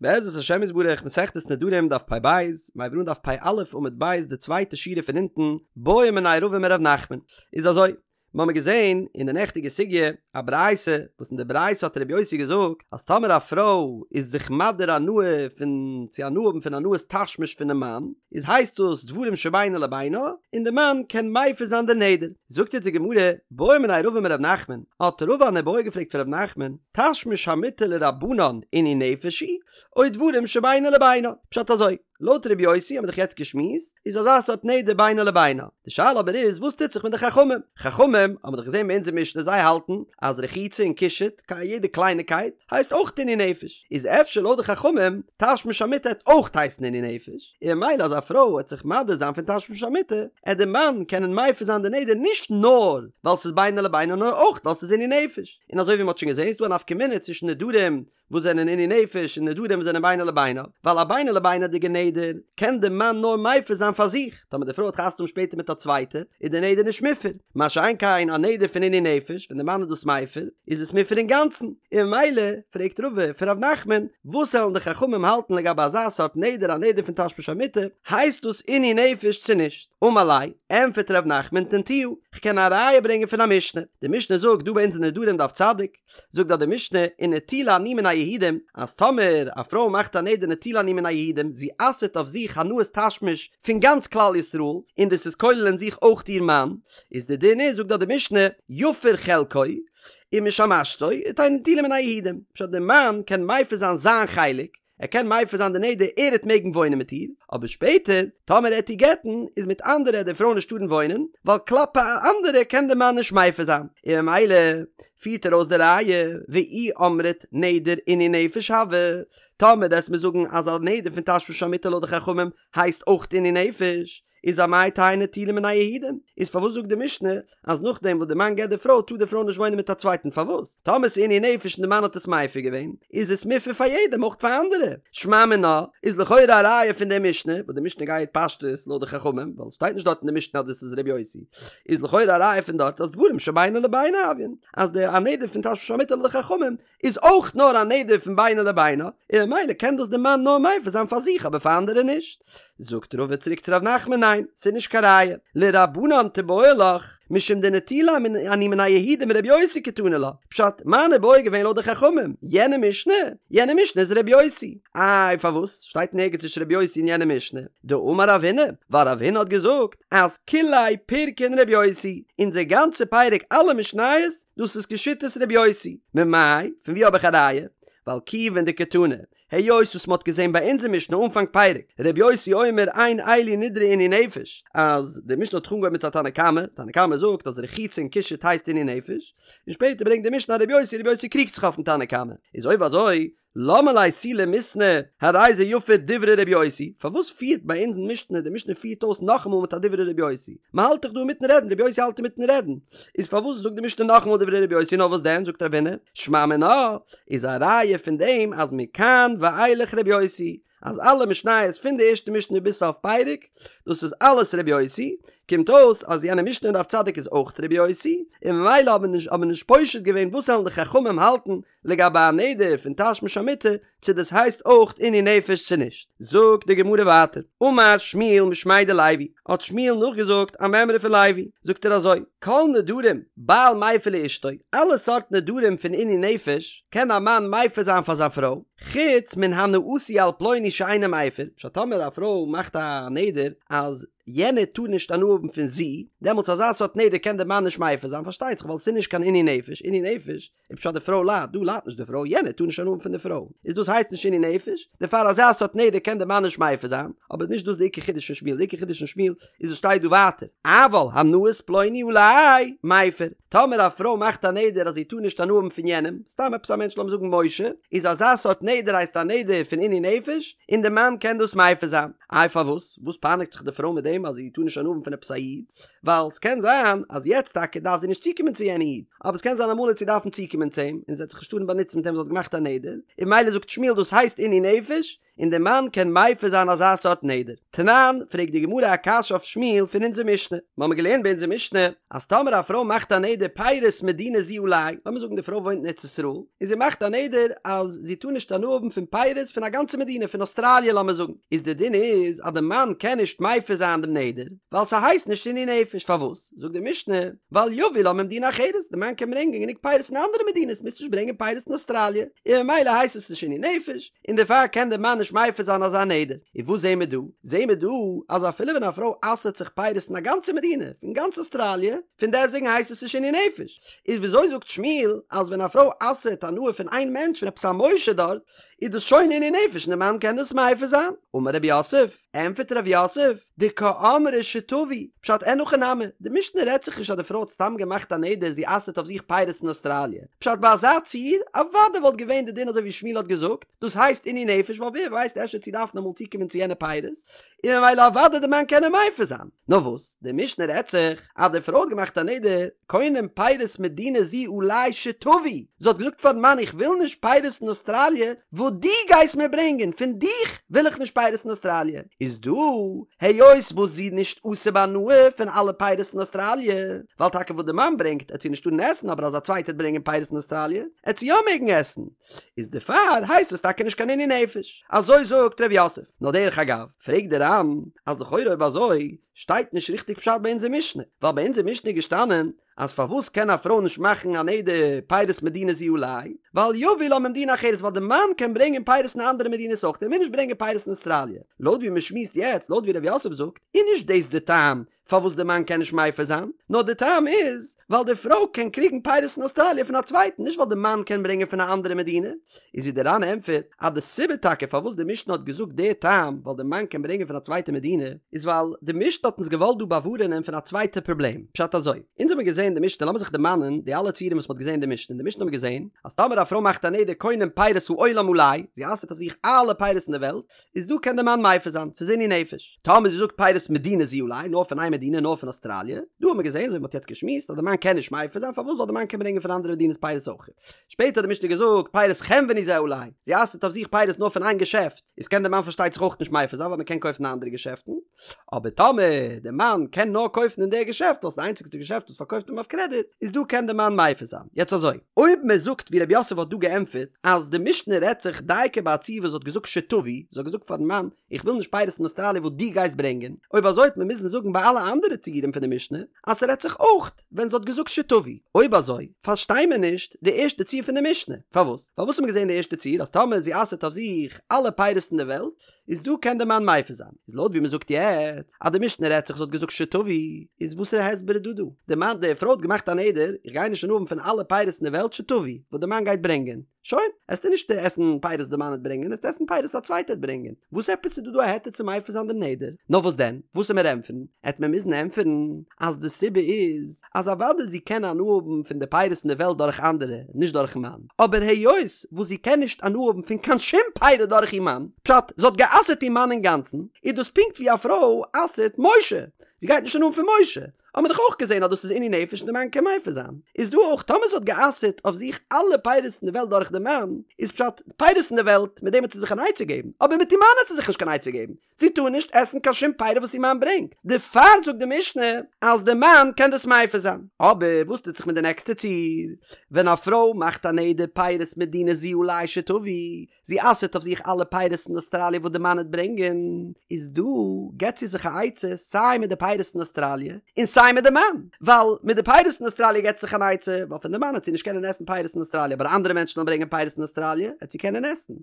בעזרת השם יתברך מסכת נדרים דף פ"ב, מ'הייבט אן דף פ"א עמוד ב' די צווייטע שורה פון אונטן, בעא מיניה רבא מר' נחמן, איז אזוי, מ'האמיר געזען אין די נעכטיגע סוגיא א ברייתא, וואס אין די ברייתא האט ר' יוסי געזאגט אז טאמער א פרוי איז זיך מדיר הנאה פון צו הנאה האבן פון הנאת תשמיש פונעם מאן, איז הייסט דאס דברים שבינו לבינה, און די מאן קען מפר זיין די נדר. זאגט אונז די גמרא, בעא מיניה רבא מר' נחמן, האט רבא אן איבעיא געפרעגט פון ר' נחמן, תשמיש המיטה לרבנן עינוי נפש הוא, או דברים שבינו לבינה? פשט אזוי, לויט ר' יוסי האבן מיר דאך יעצט געשמועסט, איז אזא סארט נדר בינו לבינה. די שאלה אבער איז וואס טוט זיך מיט די חכמים? חכמים האבן מיר דאך געזען ביי אונזער משנה זיי האלטן אז רחיצה און קישוט, יעדע קלייניקייט, הייסט אויך עינוי נפש. איז אפשר לויט די חכמים תשמיש המיטה העט אויך הייסן עינוי נפש, און ממילא אז א פרוי העט זיך מדיר זיין פון תשמיש המיטה, העט די מאן קענען מפר זיין די נדר נישט נאר ווייל ס'איז בינו לבינה נאר אויך ווייל ס'איז עינוי נפש. און אזוי ווי מ'האט שוין געזען איז דא א נפקא מינה צווישן נדרים וואס זענען עינוי נפש און נדרים וואס זענען בינו לבינה, ווייל א בינו לבינה'דיגע נדר קען די מאן נאר מפר זיין פאר זיך, טאמער די פרוי האט חתונה שפעטער מיט א צווייטע איז די נדר נישט מופר, מה שאין כן א נדר פון עינוי נפש ווען די מאן איז דאס מפר איז עס מופר אינגאנצן, און ממילא פרעגט רבא פון ר' נחמן וואס וועלן די חכמים האלטן לגבי אזא סארט נדר א נדר פון תשמיש המיטה, הייסט דאס עינוי נפש צו נישט? אמר ליה, ענפערט ר' נחמן תניתוה, כ'קען א ראיה ברענגען פון א משנה, די משנה זאגט דא ביי אונז אין נדרים דף צדיק, זאגט דארט די משנה, ונטולה אני מן היהודים, אז טאמער א פרוי מאכט א נדר נטולה אני מן היהודים, זי אסר'ט אויף זיך הנאת תשמיש פון גאנץ כלל ישראל, און דאס איז כולל אין זיך אויך איר מאן, איז די דין איז, זאגט דארט די משנה, יפר חלקו, ומשמשתו, ותהא נטולה מן היהודים, פשט די מאן קען מפר זיין זיין חלק, ער קען מפר זיין די נדר ער העט מעגן וואוינען מיט איר, אבער שפעטער טאמער ער העט איר גט'ן איז מיט אנדערע העט די פרוי נישט טארן וואוינען, ווייל כלפי אנדערע קען די מאן נישט מפר זיין, און ממילא פירט ער אויס די ראיה, ואי אמרת נדר עינוי נפש הוי, טאמער וועסט מיר זאגן אז א נדר פון תשמיש המיטה לויט די חכמים הייסט אויך עינוי נפש, איז אמאי תהא נטולה מן היהודים? איז פארוואס זאגט די משנה אז נאכדעם וואס די מאן גט די פרוי טאר די פרוי נישט וואוינען מיט א צווייטן פארוואס? טאמער ס'איז עינוי נפש און די מאן האט עס מפר געווען איז עס מופר פאר יעדעם אויך פאר אנדערע. שמע מינה איז לכאורה א ראיה פון די משנה וואס די משנה גייט פשטות לויט די חכמים ווייל עס שטייט נישט דארט אין די משנה אז דאס איז ר' יוסי איז לכאורה א ראיה פון דארט אז דברים שבינו לבינה הויין אז די א נדר פון תשמיש המיטה לויט די חכמים איז אויך נאר א נדר פון בינו לבינה, און ממילא קען דאס די מאן נאר מפר זיין פאר זיך אבער פאר אנדערע נישט. זאגט רבא צוריק צו ר' נחמן ניין, ס'איז נישט קיין ראיה, לרבנן תיבעי לך, משום דנטולה אני מן היהודים ר' יוסי קתני לה, פשט, מיין איבעיא איז געווען לויט די חכמים, יענע משנה, יענע משנה איז ר' יוסי. איי פארוואס שטייט נערגעץ נישט ר' יוסי אין יענע משנה? דאמר רב הונא, ווייל רב הונא האט געזאגט אז כוליה פירקין ר' יוסי, אונזער גאנצע פרק אלע משניות דאס איז כשיטת ר' יוסי. ממאי? פון ווי האב איך א ראיה? ווייל כיוון דקתני, היות וואס מ'האט געזען ביי אונזער משנה אנפאנג פרק, ר' יוסי אומר אין אלו נדרי עינוי נפש, אז די משנה האט זיך אנגעהויבן מיט א תנא קמא, תנא קמא זאגט אז רחיצה און קישוט הייסט עינוי נפש, און שפעטער ברענגט די משנה א ר' יוסי, ר' יוסי קריגט זיך אויפן תנא קמא, איז אויב אזוי למה ליה תו למיתנא הרי זה יפר דברי רבי יוסי, פארוואס פירט ביי אונז אין משנה די משנה פירט אויס נאכאמאל מיט א דברי רבי יוסי, מען האלט דאך דא אינמיטן רעדן רבי יוסי האלט אינמיטן רעדן, איז פארוואס זאגט די משנה נאכאמאל דברי רבי יוסי נאר וואס דען זאגט רב הונא שמע מינה איז א ראיה פון דעם אז מכאן ואילך רבי יוסי אז אלע משניות פון די ערשטע משנה ביז סוף פרק דאס איז אלעס רבי יוסי, קומט אויס אז יענע משנה אין דף צדיק איז אויך רבי יוסי, און ממילא האבן נישט האבן נישט פושט געווען וואס וועלן די חכמים האלטן לגבי א נדר פון תשמיש המיטה צו דאס הייסט אויך עינוי נפש צו נישט. זאגט די גמרא ווייטער, אמר שמואל משמיה דלוי, האט שמואל נאכגעזאגט א מימרא פון לוי, זאגט ער אזוי, כל נדרים בעל מפר לאשתו, אלע סארט נדרים פון עינוי נפש קען א מאן מפר זיין פאר זיין פרוי, חוץ מן הנאתי על פלוני שאינו מפר, פשט טאמער א פרוי מאכט א נדר אז יענער טאר נישט הנאה האבן פון זי, דעמאלטס אזא סארט נדר קען דער מאן נישט מפר זיין, פארשטייט זיך ווייל עס איז נישט קיין עינוי נפש, עינוי נפש איז פשט די פרוי ליידט, דא ליידט נישט די פרוי, יענער טאר נישט הנאה האבן פון די פרוי, איז דאס הייסט נישט עינוי נפש, דערפאר אזא סארט נדר קען דער מאן נישט מפר זיין, אבער נישט דאס די עיקר חידוש פון שמואל, די עיקר חידוש פון שמואל איז וואס שטייט דא ווייטער, אבל הנאת פלוני עלי מפר, טאמער א פרוי מאכט א נדר אז זי טאר נישט הנאה האבן פון יענעם, סתם עפעס א מענטש לאמיר זאגן משה, איז אזא סארט נדר הייסט א נדר פון עינוי נפש, און די מאן קען דאס מפר זיין. איי פארוואס? וואס פייניגט זיך די פרוי מיט דעם אז זי טאר נישט הנאה האבן פון עפעס א איד? ווייל ס'קען זיין אז יעצט טאקע דארף זי נישט צוקומען צו יענע איד, אבער ס'קען זיין אמאל וועט זי דארפן צוקומען צו אים, און זי וועט זיך נישט טארן באנוצן מיט אים זי האט געמאכט א נדר, און ממילא זאגט שמואל דאס הייסט עינוי נפש, און די מאן קען מפר זיין אזא סארט נדר. תנן, פרעגט די גמרא א קשיא אויף שמואל פון אונזער משנה. מ'האמיר געלערנט ביי אונזער משנה אז טאמער א פרוי מאכט א נדר פירות מדינה זו עלי, לאמיר זאגן די פרוי וואוינט אין ארץ ישראל, און זי מאכט א נדר אז זי טאר נישט הנאה האבן פון פירות פון א גאנצע מדינה, פון אוסטראליע לאמיר זאגן, איז די דין איז אז די מאן קען נישט מפר זיין דעם נדר, ווייל ס'הייסט נישט עינוי נפש, פארוואס? זאגט די משנה, ווייל יביא לה ממדינה אחרת, די מאן קען ברענגען גענוג פירות אין אנדערע מדינות, מוזט נישט ברענגען פירות אין אוסטראליע, און ממילא הייסט עס נישט עינוי נפש, און דערפאר קען דער מאן נישט מפר זיין אזא נדר. און וואס זעהן מיר דא? זעהן מיר דא אז אפילו ווען א פרוי אסר'ט זיך פירות אין א גאנצע מדינה, פון גאנץ אוסטראליע, פון דעסטוועגן הייסט עס נישט עינוי נפש. איז וויאזוי זאגט שמואל אז ווען א פרוי אסר'ט הנאה פון איין מענטש פון עפעס א משה דארט, איז דאס שוין עינוי נפש און דער מאן קען דאס מפר זיין? אמר רב יוסף, ענטפערט רב יוסף, דקאמרה שתביא, פשט אין הכי נמי, די משנה רעדט זיך נישט אז די פרוי האט סתם געמאכט א נדר זי אסר'ט אויף זיך פירות אין אוסטראליע, פשט ביי אזא ציור, אוודאי וואלט געווען די דין אזוי ווי שמואל האט געזאגט, דאס הייסט עינוי נפש ווייל ווער ווייסט אפשר וועט זי דארפן אמאל צוקומען צו יענע פירות, און ממילא אוודאי די מאן קען איר מפר זיין. נאר וואס, די משנה רעדט זיך אז די פרוי האט געמאכט א נדר, קונם פירות מדינה זו עלי שתביא, זי האט געזאגט פארן מאן איך וויל נישט פירות אין אוסטראליע וואס דו גייסט מיר ברענגען, פון דיך וויל איך נישט פירות אין אוסטראליע, איז דא היות וואס זי איז נישט אסור בהנאה פון אלע פירות אין אוסטראליע, ווייל טאקע וואס די מאן ברענגט עט זי נישט טארן עסן אבער אז א צווייטער עט ברענגען פירות אין אוסטראליע עט זי יא מעגן עסן, איז דערפאר הייסט עס טאקע נישט קיין עינוי נפש, אזוי זאגט ר' יוסף, נאר דרך אגב פרעגט די ר"ן אז לכאורה אויב אזוי שטייט נישט ריכטיג פשט ביי אונזער משנה, ווייל ביי אונזער משנה איז געשטאנען אז פארוואס קען א פרוי נישט מאכן א נדר פירות מדינה זו עלי, ווייל יביא לה ממדינה אחרת ווייל די מאן קען ברענגען פירות אין אנדערע מדינות אויך ער מוז נישט ברענגען פירות אין אוסטראליע, לויט ווי מען שמועסט יעצט לויט ווי ר' יוסף זאגט איז נישט דאס די טעם פארוואס די מאן קען נישט מפר זיין, נאר די טעם איז ווייל די פרוי קען קריגן פירות אין אוסטראליע פון א צווייטן נישט ווייל די מאן קען ברענגען פון א אנדערע מדינה, איז ווי די ר"ן ענטפערט אז די סיבה טאקע פארוואס די משנה האט געזאגט די טעם ווייל די מאן קען ברענגען פון א צווייטע מדינה איז ווייל די משנה האט אונז געוואלט דא באווארענען פון א צווייטע פראבלעם, פשט אזוי, אונז האבן געזען די משנה לאמיר זיך דערמאנען די אלע ציורים וואס מען האט געזען אין די משנה, אין די משנה האבן מיר געזען אז טאמער א פרוי מאכט א נדר קונם פירות העולם עלי, זי אסר'ט אויף זיך אלע פירות אין די וועלט, איז דא קען די מאן מפר זיין, ס'איז עינוי נפש. טאמער זי זאגט פירות מדינה זו עלי, נאר פון איין מדינה, נאר פון אוסטראליע, דא האט מען געזען, אזוי ווי מ'האט יעצט געשמועסט, אז די מאן קען נישט מפר זיין, פארוואס? ווייל די מאן קען ברענגען פון אנדערע מדינות פירות אויך. שפעטער האט די משנה געזאגט, פירות חנווני זה עלי, זי אסר'ט אויף זיך פירות נאר פון איין געשעפט, איז קען די מאן פארשטייט זיך אויך נישט מפר זיין, ווייל מ'קען קויפן אין אנדערע געשעפטן. אבער טאמער די מאן קען נאר קויפן אין די געשעפט, ווייל ס'איז די איינציגסטע געשעפט וואס פארקויפט אים אויף קרעדיט, איז דא קען די מאן מפר זיין. יעצט אזוי, אויב מען זאגט ווי רב יוסף האט דא געענטפערט, אז די משנה רעדט זיך דייקא ביי א ציור וואס האט געזאגט שתביא, זי האט געזאגט פארן מאן, איך וויל נישט פירות פון אוסטראליע וואס דו גייסט ברענגען, אויב אזוי וועט מען מוזן זאגן ביי אלע אנדערע ציורים פון די משנה, אז ס'רעדט זיך אויך ווען זי האט געזאגט שתביא. אויב אזוי, פארשטיי מיר נישט די ערשטע ציור פון די משנה. פארוואס? ווייל וואס האט מען געזען אין די ערשטע ציור אז טאמער זי אסר'ט אויף זיך אלע פירות אין די וועלט, איז דא קען די מאן מפר זיין. איז לויט ווי מ'זאגט יעצט אז די משנה רעדט זיך זי האט געזאגט שתביא, איז וואסערע הסבר איז דא דא? די מאן די פרוי האט געמאכט א נדר, איך גיי נישט הנאה האבן פון אלע פירות אין די וועלט שתביא, וואס די מאן גייט ברענגען. שוין, עסטו נישט עסן פירות וואס די מאן וועט ברענגען, עסטו עסן פירות וואס א צווייטער וועט ברענגען. וואס עפעס איז דא דא א היתר צו מפר זיין דעם נדר? נאר וואס דען? וואס עמיר ענטפערן? עט מען מוזן ענטפערן אז די סיבה איז אז אוודאי זי קען הנאה האבן פון די פירות אין די וועלט דורך אנדערע, נישט דורכן מאן, אבער היות וואס זי קען נישט הנאה האבן פון קיין שום פירות דורך איר מאן, פשט, זי האט גע'אסר'ט איר מאן אינגאנצן, איז דאס פונקט ווי א פרוי אסר'ט משה, זי גייט נישט הנאה האבן פון משה, האט מען דאך אויך געזען אז דאס איז עינוי נפש און די מאן קען מפר זיין, איז דא אויך טאמער זי האט גע'אסר'ט אויף זיך אלע פירות אין די וועלט דורך די מאן, איז פשט, פירות אין די וועלט, מיט דעם וועט זי זיך אן עצה געבן, אבער מיט איר מאן וועט זי זיך נישט קיין עצה געבן, זי טאר נישט עסן קיין שום פירות וואס איר מאן ברענגט, דערפאר זאגט די משנה אז די מאן קען דאס מפר זיין. אבער וואס טוט זיך מיט די נעקסטע ציור, ווען א פרוי מאכט א נדר פירות מדינה זו עלי שתביא, זי אסר'ט אויף זיך אלע פירות אין אוסטראליע וואס די מאן וועט ברענגען, איז דא געבט זי זיך א עצה סיי מיט די פירות אין אוסטראליע און סיי מיט די מאן, ווייל מיט די פירות אין אוסטראליע געבט זי זיך אן עצה, ווייל פון די מאן וועט זי נישט קענען עסן פירות אין אוסטראליע, אבער אנדערע מענטשן וועלן ברענגען פירות אין אוסטראליע וועט זי קענען עסן.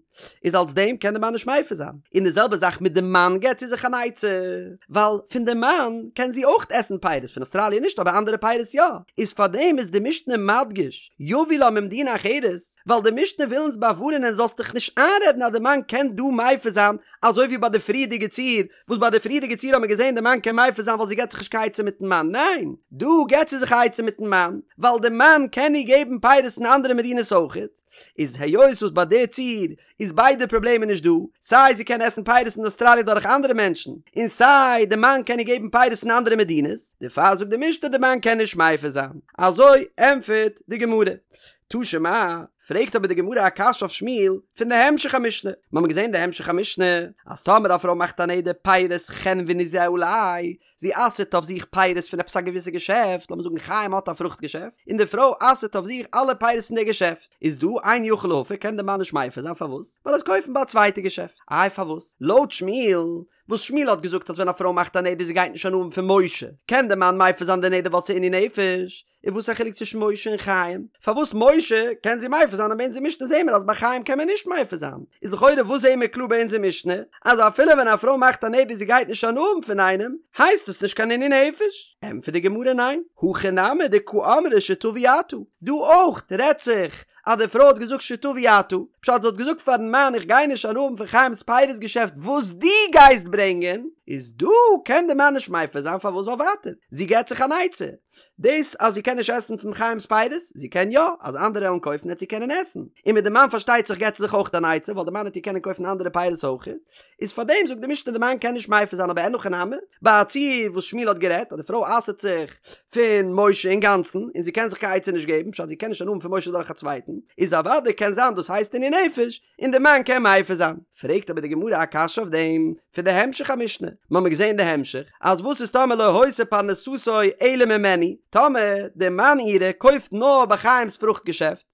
איז אלס דעם קען די מאן נישט מפר זיין, און די זעלבע זאך מיט די מאן געבט זי זיך אן עצה, ווייל פון די מאן קען זי אויך עסן פירות, פון אוסטראליע נישט אבער אנדערע פירות יא, איז פארדעם איז די משנה מדגיש יביא לה ממדינה אחרת, ווייל די משנה וויל אונז באווארענען זאלסט דיך נישט איינרעדן אז די מאן קען דא מפר זיין, אזוי ווי ביי די פריערדיגע ציור, וואס ביי די פריערדיגע ציור האט מען געזען די מאן קען מפר זיין ווייל זי געבט זיך נישט קיין עצה מיטן מאן, ניין, דא געבט זי זיך א עצה מיטן מאן, ווייל די מאן קען איר געבן פירות אין אנדערע מדינות אויכעט. איז היות וואס ביי די ציור איז ביידע פראבלעמען נישט דא, סיי זי קען עסן פירות אין אוסטראליע דורך אנדערע מענטשן, און סיי די מאן קען איר געבן פירות אין אנדערע מדינות, דערפאר זאגט די משנה די מאן קען נישט מפר זיין. אזוי ענטפערט די גמרא. תא שמע, פרעגט אבער די גמרא א קשיא אויף שמואל פון די המשך המשנה, מיר האבן געזען אין די המשך המשנה אז טאמער א פרוי מאכט א נדר פירות חנווני זה עלי, זי אסר'ט אויף זיך פירות פון עפעס א געוויסע געשעפט, לאמיר זאגן חיים האט א פרוכט געשעפט, און די פרוי אסר'ט אויף זיך אלע פירות פון די געשעפט, איז דא אין יכול להפר קען די מאן נישט מפר זיין פארוואס? ווייל ער וועט קויפן ביי א צווייטע געשעפט, איי פארוואס? לויט שמואל, וואס שמואל האט געזאגט אז ווען א פרוי מאכט א נדר זי גייט נישט הנאה האבן פון משה, קען די מאן מפר זיין די נדר ווייל ס'איז עינוי נפש, איז וואס א חילוק צווישן משה און חיים? פארוואס משה קען זי מפר זיין און ביי אונזער משנה זעהן מיר אז ביי חיים קען מען נישט מפר זיין? איז לכאורה וואס זעהן מיר קלאר ביי אונזער משנה? אז אפילו ווען א פרוי מאכט א נדר זי גייט נישט הנאה האבן פון איינעם, הייסט עס נישט קיין עינוי נפש? ענטפערט די גמרא ניין, הכא נמי דקא אמרה שתביא אתה, דא אויך רעדט זיך אז די פרוי האט געזאגט שתביא אתה, פשט זי האט געזאגט פארן מאן איך גיי נישט הנאה האבן פון חיים'ס פירות געשעפט וואס דו גייסט ברענגען, איז דא קען די מאן נישט מפר זיין פארוואס ווייל ווייטער זי געבט זיך אן עצה, דאס אז זי קען נישט עסן פון חיים'ס פירות, זי קען יא, אז אנדערע וועלן קויפן וועט זי קענען עסן, און מיט די מאן פארשטייט זיך געבט זי זיך אויך אן עצה ווייל די מאן וועט איר קענען קויפן אנדערע פירות אויך, איז פארדעם זאגט די משנה די מאן קען נישט מפר זיין אבער אין הכי נמי, ביי א ציור וואס שמואל האט גערעדט אז די פרוי אסר'ט זיך פון משה אינגאנצן און זי קען זיך קיין עצה נישט געבן פשט זי קען נישט הנאה האבן פון משה דורך א צווייטן, איז אוודאי קען זיין דאס הייסט עינוי נפש און די מאן קען מפר זיין. פרעגט אבער די גמרא א קשיא אויף דעם פון די המשך המשנה, מ'האמיר געזען די המשך אז וואס איז טאמער לא היתה פרנסתו אלא ממנו, טאמער די מאן אירע קויפט נאר ביי חיים'ס פרוכט געשעפט,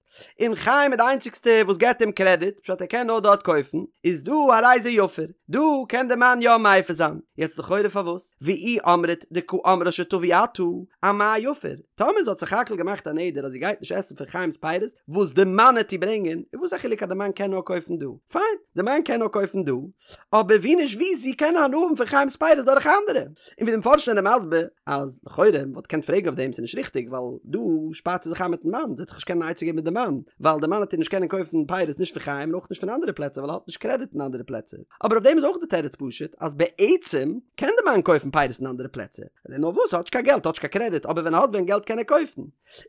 און חיים איז די איינציגסטע וואס געבט אים קרעדיט, פשט ער קען נאר דארט קויפן, איז דא הרי זה יפר, דא קען די מאן יא מפר זיין, יעצט לכאורה פארוואס? ואי אמרת דקא אמרה שתביא אתה, אמאי יפר? טאמער זי האט סך הכל געמאכט א נדר אז זי גייט נישט עסן פון חיים'ס פירות וואס די מאן העט איר ברענגען, איז וואס א חילוק אז די מאן קען נאר קויפן דא? פיין, די מאן קען נאר קויפן דא, אבער ווי נישט ווי זי קען הנאה האבן פון חיים'ס פירות דורך אנדערע. און ווי די מפרשים זענען מסביר אז לכאורה מען וואלט געקענט פרעגן אויף דעם ס'איז נישט ריכטיג ווייל דא שפארט זי זיך איין מיטן מאן זי וועט זיך נישט קענען אן עצה געבן מיט די מאן ווייל די מאן וועט איר נישט קענען קויפן פירות נישט פון חיים און אויך נישט פון אנדערע פלעצער ווייל ער האט נישט קרעדיט אין אנדערע פלעצער אבער אויף דעם איז אויך די תירוץ פשוט אז בעצם קען די מאן קויפן פירות אין אנדערע פלעצער נאר וואס ער האט נישט קיין געלט האט נישט קיין קרעדיט אבער ווען ער האט ווען געלט קען ער קויפן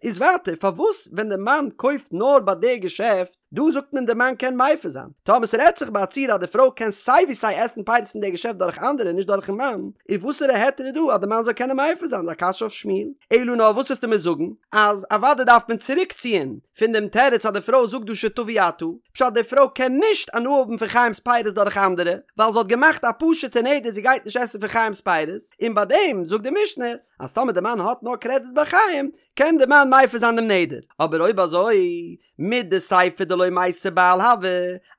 איז ווייטער פארוואס ווען די מאן קויפט נאר ביי די געשעפט דא זאגט מען די מאן קען מפר זיין, טאמער ס'רעדט זיך ביי א ציור אז די פרוי קען סיי ווי סיי עסן פירות אין די געשעפט דורך אנדערע נישט דורכן מאן, איז וואסערע היתר איז דא אז די מאן זאל קענען מפר זיין? איז א קשיא אויף שמואל. אלא נאר וואס וועסטו מיר זאגן אז אוודאי דארף מען צוריק ציען פון דעם תירוץ אז די פרוי זאגט דא שתביא אתה, פשט די פרוי קען נישט הנאה האבן פון חיים'ס פירות דורך אנדערע, ווייל זי האט געמאכט א פשוט'ע נדר זי גייט נישט עסן פון חיים'ס פירות, און ביי דעם זאגט די משנה אז טאמער די מאן האט נאר קרעדיט ביי חיים קען די מאן מפר זיין דעם נדר, אבער אויב אזוי מדסיפא דלא מייתי בעל הוי,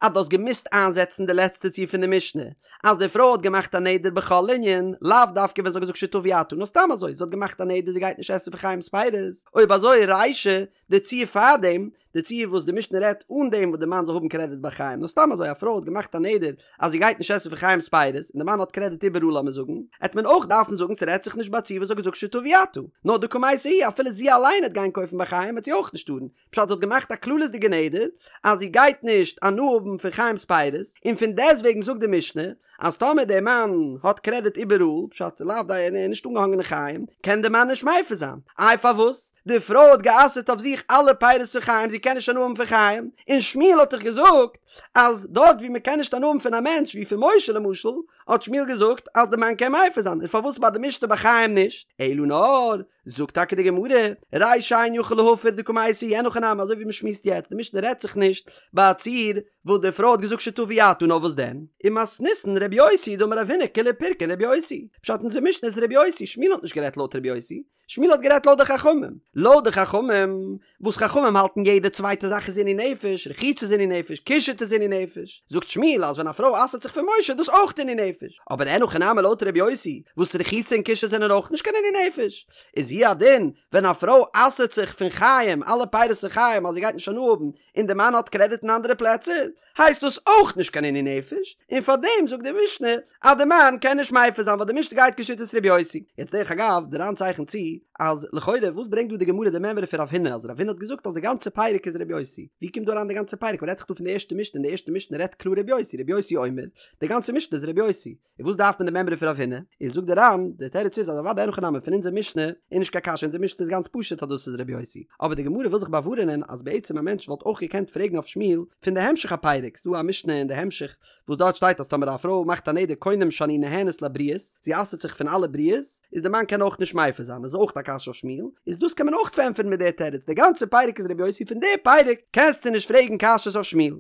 אז דו האסט געמוזט איינזעצן די לעצטע ציור פון די משנה, אז די פרוי האט געמאכט א נדר בכל ענין, לאו דווקא ווען זי האט געזאגט שתביא אתה, נאר סתם אזוי, זי האט געמאכט א נדר זי גייט נישט עסן פון חיים'ס פירות, אויב אזוי רישא, די ציור פארדעם, די ציור וואס די משנה רעדט אן דעם וואס די מאן זאל האבן קרעדיט ביי חיים, נאר סתם אזוי א פרוי האט געמאכט א נדר אז זי גייט נישט עסן פון חיים'ס פירות, און די מאן האט קרעדיט איבעראל לאמיר זאגן, העט מען אויך דארפן זאגן ס'רעדט זיך נישט ביי א ציור וואס זי האט געזאגט שתביא אתה, נאר דקא מייתא היא אפילו זי אליין העט גיין קויפן ביי חיים וועט זי אויך נישט טארן, פשט זי האט געמאכט א כללית'דיגע נדר אז זי גייט נישט הנאה האבן פון חיים'ס פירות, און פון דעסטוועגן זאגט די משנה אז טאמער דער מאן האט קרעדיט איבעראל, פשט לאו די ער איז נישט אנגעהאנגען אין חיים, קען דער מאן נישט מפר זיין. איי פארוואס? די פרוי האט גע'אסר'ט אויף זיך אלע פירות פון חיים זי קען נישט הנאה האבן פון חיים, און שמואל האט דאך געזאגט אז דארט ווי מען קען נישט הנאה האבן פון א מענטש ווי פון משה למשל, האט שמואל געזאגט אז די מאן קען מפר זיין, און פארוואס ביי די משנה ביי חיים נישט? אלא נאר זאגט טאקע די גמרא, רישא אין יכול להפר דקא מייתא היא אין הכי נמי אזוי ווי מען שמועסט יעצט, די משנה רעדט זיך נישט ביי א ציור וואס די פרוי האט געזאגט שתביא אתה נאר וואס דען? ומתניתין רבי יוסי דאמר רב הונא כולה פירקין רבי יוסי, פשט אונזער משנה איז רבי יוסי, שמואל האט נישט גערעדט לויט רבי יוסי, שמואל האט גערעדט לויט די חכמים, לויט די חכמים, וואס חכמים האלטן יעדע צווייטע זאך איז עינוי נפש, רחיצה איז עינוי נפש, קישוט איז עינוי נפש, זאגט שמואל אז ווען א פרוי אסר'ט זיך פון משה איז דאס אויך עינוי נפש, אבער אין הכי נמי לויט ר' יוסי, וואס רחיצה און קישוט זענען אויך נישט קיין עינוי נפש, איז הוא הדין ווען א פרוי אסר'ט זיך פון חיים, אלע פירות פון חיים אז זי גייט נישט הנאה האבן, און די מאן האט קרעדיט אין אנדערע פלעצער, הייסט דאס אויך נישט קיין עינוי נפש, און פאר דעם זאגט די משנה אז די מאן קען נישט מפר זיין ווייל די משנה גייט כשיטת ר' יוסי. יעצט דרך אגב, די ר"ן צייכנט צו אז לכאורה וואס ברענגט דא די גמרא די מימרא פון רב הונא אז רב הונא האט געזאגט אז די גאנצע פרק איז ר' יוסי, ווי קומט דא אריין די גאנצע פרק? מ'רעדט דאך דא פון די ערשטע משנה און די ערשטע משנה רעדט קלאר ר' יוסי, ר' יוסי אומר, די גאנצע משנה איז ר' יוסי. און וואס דארף מען די מימרא פון רב הונא? איז זאגט די ר"ן, די תירוץ איז אז אוודאי אין הכי נמי פון אונזער משנה איז נישט קיין קשיא אונזער משנה איז גאנץ פשוט אז דאס איז רבי יוסי, אבער די גמרא וויל זיך באווארענען אז בעצם א מענטש וואלט אויך געקענט פרעגן אויף שמואל פון די המשך הפרק, ס'דא א משנה אין די המשך וואס דארט שטייט אז טאמער א פרוי מאכט א נדר קונם שאני נהנית לבריות, זי אסר'ט זיך פון אלע בריות, איז די מאן קען אויך נישט מפר זיין, איז אויך א קשיא. קשיא אויף שמואל, איז דאס קען מען אויך פארענטפערן מיט די תירוץ, די גאנצע פרק איז רבי יוסי פון די פרק קענסטו נישט פרעגן קשיות אויף שמואל.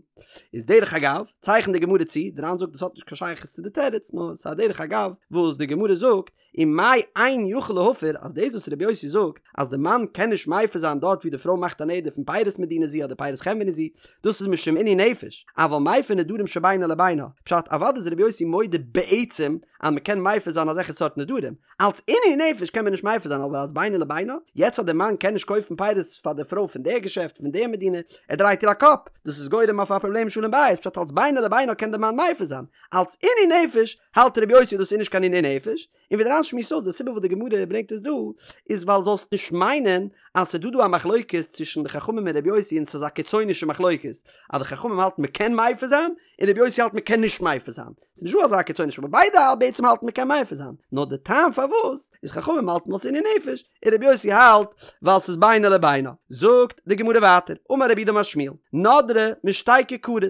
איז דרך אגב, צייכנט די גמרא צו, די ר"ן זאגט דאס האט נישט קיין שייכות צו די תירוץ, נאר ס'איז א דרך אגב וואס די גמרא זאגט, ומאי אין יכול להפר, אז דאס וואס רבי יוסי זאגט אז די מאן קען נישט מפר זיין דארט ווי די פרוי מאכט א נדר פון פירות מדינה זו אדער פירות חנווני זו, דאס איז משום עינוי נפש, אבל מפר נדרים שבינו לבינה, פשט אוודאי איז רבי יוסי מודה בעצם אז מען קען מפר זיין אזעלכע סארט נדרים, אלץ עינוי נפש קען מען נישט מפר זיין אבער אלץ בינו לבינה, יעצט אז די מאן קען נישט קויפן פירות פאר די פרוי פון די געשעפט פון די מדינה, ער דרייט איר א קאפ, דאס איז גורם אויף א פראבלעם שלום בית, פשט אלץ בינו לבינה קען די מאן מפר זיין, אלץ עינוי נפש האלט רבי יוסי דאס איז נישט קיין עינוי נפש, און ווי די ר"ן שמועסט אויס די סיבה וואס די גמרא ברענגט עס דא איז ווייל זאלסט נישט מיינען אז ס'איז דא דא א מחלוקת צווישן די חכמים און רבי יוסי און ס'איז א קיצונישע מחלוקת אז די חכמים האלטן מ'קען מפר זיין און רבי יוסי האלט מ'קען נישט מפר זיין, ס'איז נישט דא אזא קיצונישע אבער ביידע האלט בעצם האלטן מ'קען מפר זיין נאר די טעם פארוואס איז חכמים האלטן ווייל ס'איז עינוי נפש און רבי יוסי האלט ווייל ס'איז בינו לבינה. זאגט די גמרא ווייטער, אמר רב יהודה אמר שמואל, נדרה משתי כיכרות,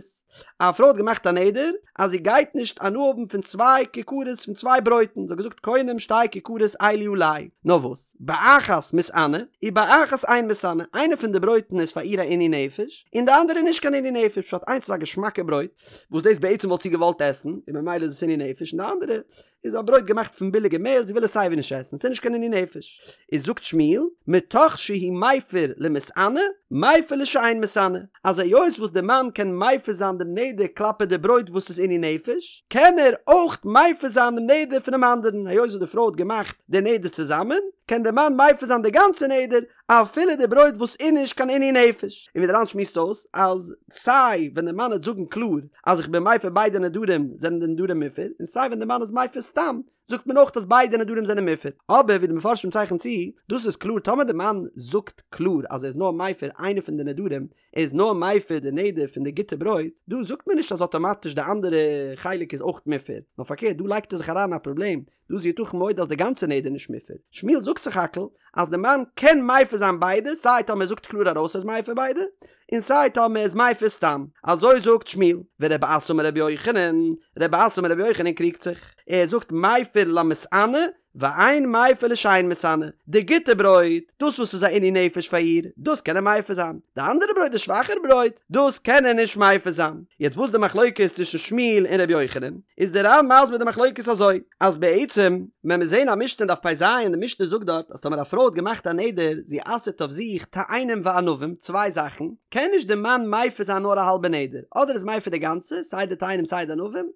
א פרוי האט געמאכט א נדר אז זי גייט נישט הנאה האבן פון צוויי כיכרות פון צוויי ברויטן, זי האט געזאגט קונם שתי כיכרות אלו עלי, נאר וואס, באחת מתענה, ובאחת אין מתענה, איינע פון די ברויטן איז פאר איר א עינוי נפש, און די אנדערע איז נישט קיין עינוי נפש, פשט איינס איז א געשמאקע ברויט, וואס דאס בעצם וואלט זי געוואלט עסן, און ממילא איז עס עינוי נפש, און די אנדערע איז א ברויט געמאכט פון ביליגע מעהל, זי וויל עס סייווי נישט עסן, ס'איז נישט קיין עינוי נפש. איז זאגט שמואל, מתוך שהוא מפר למתענה, מפר לשאין מתענה, אז היות וואס די מאן קען מפר זיין דעם נדר כלפי די ברויט וואס איז עינוי נפש, קען ער אויך מפר זיין דעם נדר פונעם אנדערן, היות וואס די פרוי האט געמאכט די נדר צוזאמען, קען די מאן מפר זיין די גאנצע נדר, אפילו די ברויט וואס איז נישט קיין עינוי נפש. און ווי די ר"ן שמועסט אויס אז סיי ווען די מאן וועט זאגן קלאר אז איך בין מפר ביידע נדרים זענען די נדרים מופר, און סיי ווען די מאן איז מפר סתם זאגט מען אויך אז ביידע נדרים זענען מופר. אבער ווי די מפרשים צייכענען צו, דאס איז קלאר טאמער די מאן זאגט קלאר אז ער איז נאר מפר איינע פון די נדרים, ער איז נאר מפר די נדר פון די גוטע ברויט, דא זאגט מען נישט אז אטאמאטיש די אנדערע חלק איז אויך מופר, נאר פארקערט דא לייגט ער זיך אריין אין א פראבלעם, דא איז יתכן מאוד אז די גאנצע נדר נישט מופר. שמואל זאגט סך הכל אז די מאן קען מפר זיין ביידע סיי טאמער ער זאגט קלאר ארויס ער איז מפר ביידע, און סיי טאמער ער איז מפר סתם. אזוי זאגט שמואל. ורבי אסי אמר רבי יוחנן, רבי אסי אמר רבי יוחנן קריגט זיך. ער זאגט מפר למתענה ואין מפר לשאין מתענה. די גוטע ברויט, דאס וואס איז א עינוי נפש פאר איר, דאס קען ער מפר זיין. די אנדערע ברויט, די שוואכערע ברויט, דאס קען ער נישט מפר זיין. יעצט וואס די מחלוקת צווישן שמואל און רבי יוחנן? איז דער ר"ן מסביר די מחלוקת אזוי, אז בעצם ווען מיר זעהן א משנה אין דף פ"ז און די משנה זאגט דארט אז טאמער א פרוי האט געמאכט א נדר זי אסר'ט אויף זיך תאנים וענבים צוויי זאכן, קען נישט די מאן מפר זיין נאר א האלבע נדר, אדער איז מפר די גאנצע, סיי די תאנים סיי די ענבים,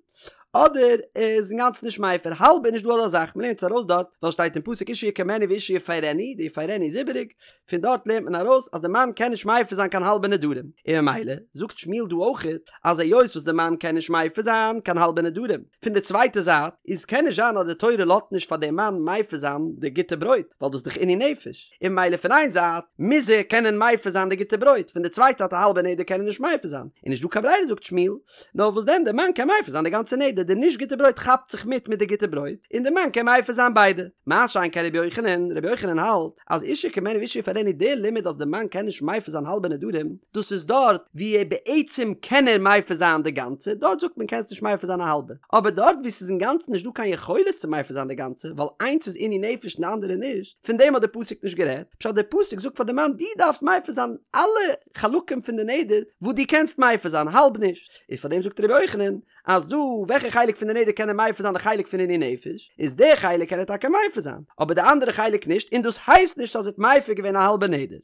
אדער איז אינגאנצן נישט מפר, האלב איז נישט דא אזא זאך, מ'לערנט עס ארויס דארט, ווייל שטייט אין פסוק אשה יקימנו ואשה יפרנו, די יפרנו איז איבעריג, פון דארט לערנט מען ארויס אז די מאן קען נישט מפר זיין קיין האלבע נדרים, און ממילא זאגט שמואל דא אויכעט אז היות וואס די מאן קען נישט מפר זיין קיין האלבע נדרים, פון די צווייטע זייט איז קען נישט זיין אז די תורה לאזט נישט פאר די מאן מפר זיין די גוטע ברויט ווייל דאס איז דאך עינוי נפש, און ממילא פון איין זייט מוז ער קענען מפר זיין די גוטע ברויט, פון די צווייטע זייט א האלבע נדר קען ער נישט מפר זיין, און נישט דא קיין ברירה זאגט שמואל, נאר וואס דען די מאן קען מפר זיין די גאנצע נדר, די נישט גוטע ברויט כאפט זיך מיט מיט די גוטע ברויט, און די מאן קען מפר זיין ביידע. מה שאין כן רבי יוחנן, רבי יוחנן האלט אז אשה יקימנו ואשה יפרנו די לימוד אז די מאן קען נישט מפר זיין האלבע נדרים, דאס איז דארט ווי ער בעצם קען ער מפר זיין די גאנצע, דארט זאגט מען קענסט נישט מפר זיין א האלבע, אבער דארט ווי ס'איז אינגאנצן נישט דא קיין יכולת צו מפר זיין די גאנצע, ווייל איינס איז עינוי נפש און די אנדערע נישט, פון דעם האט די פסוק נישט גערעדט, פשט די פסוק זאגט פאר די מאן דו דארפסט מפר זיין אלע חלקים פון די נדר וואס דו קענסט מפר זיין, האלב נישט, איז פאר דעם זאגט רבי יוחנן אז דא וועלכע חלק פון די נדר קען ער מפר זיין די חלק פון עינוי נפש, איז די חלק קען ער טאקע מפר זיין, אבער די אנדערע חלק נישט, און דאס הייסט נישט אז ער האט מפר געווען א האלבע נדר.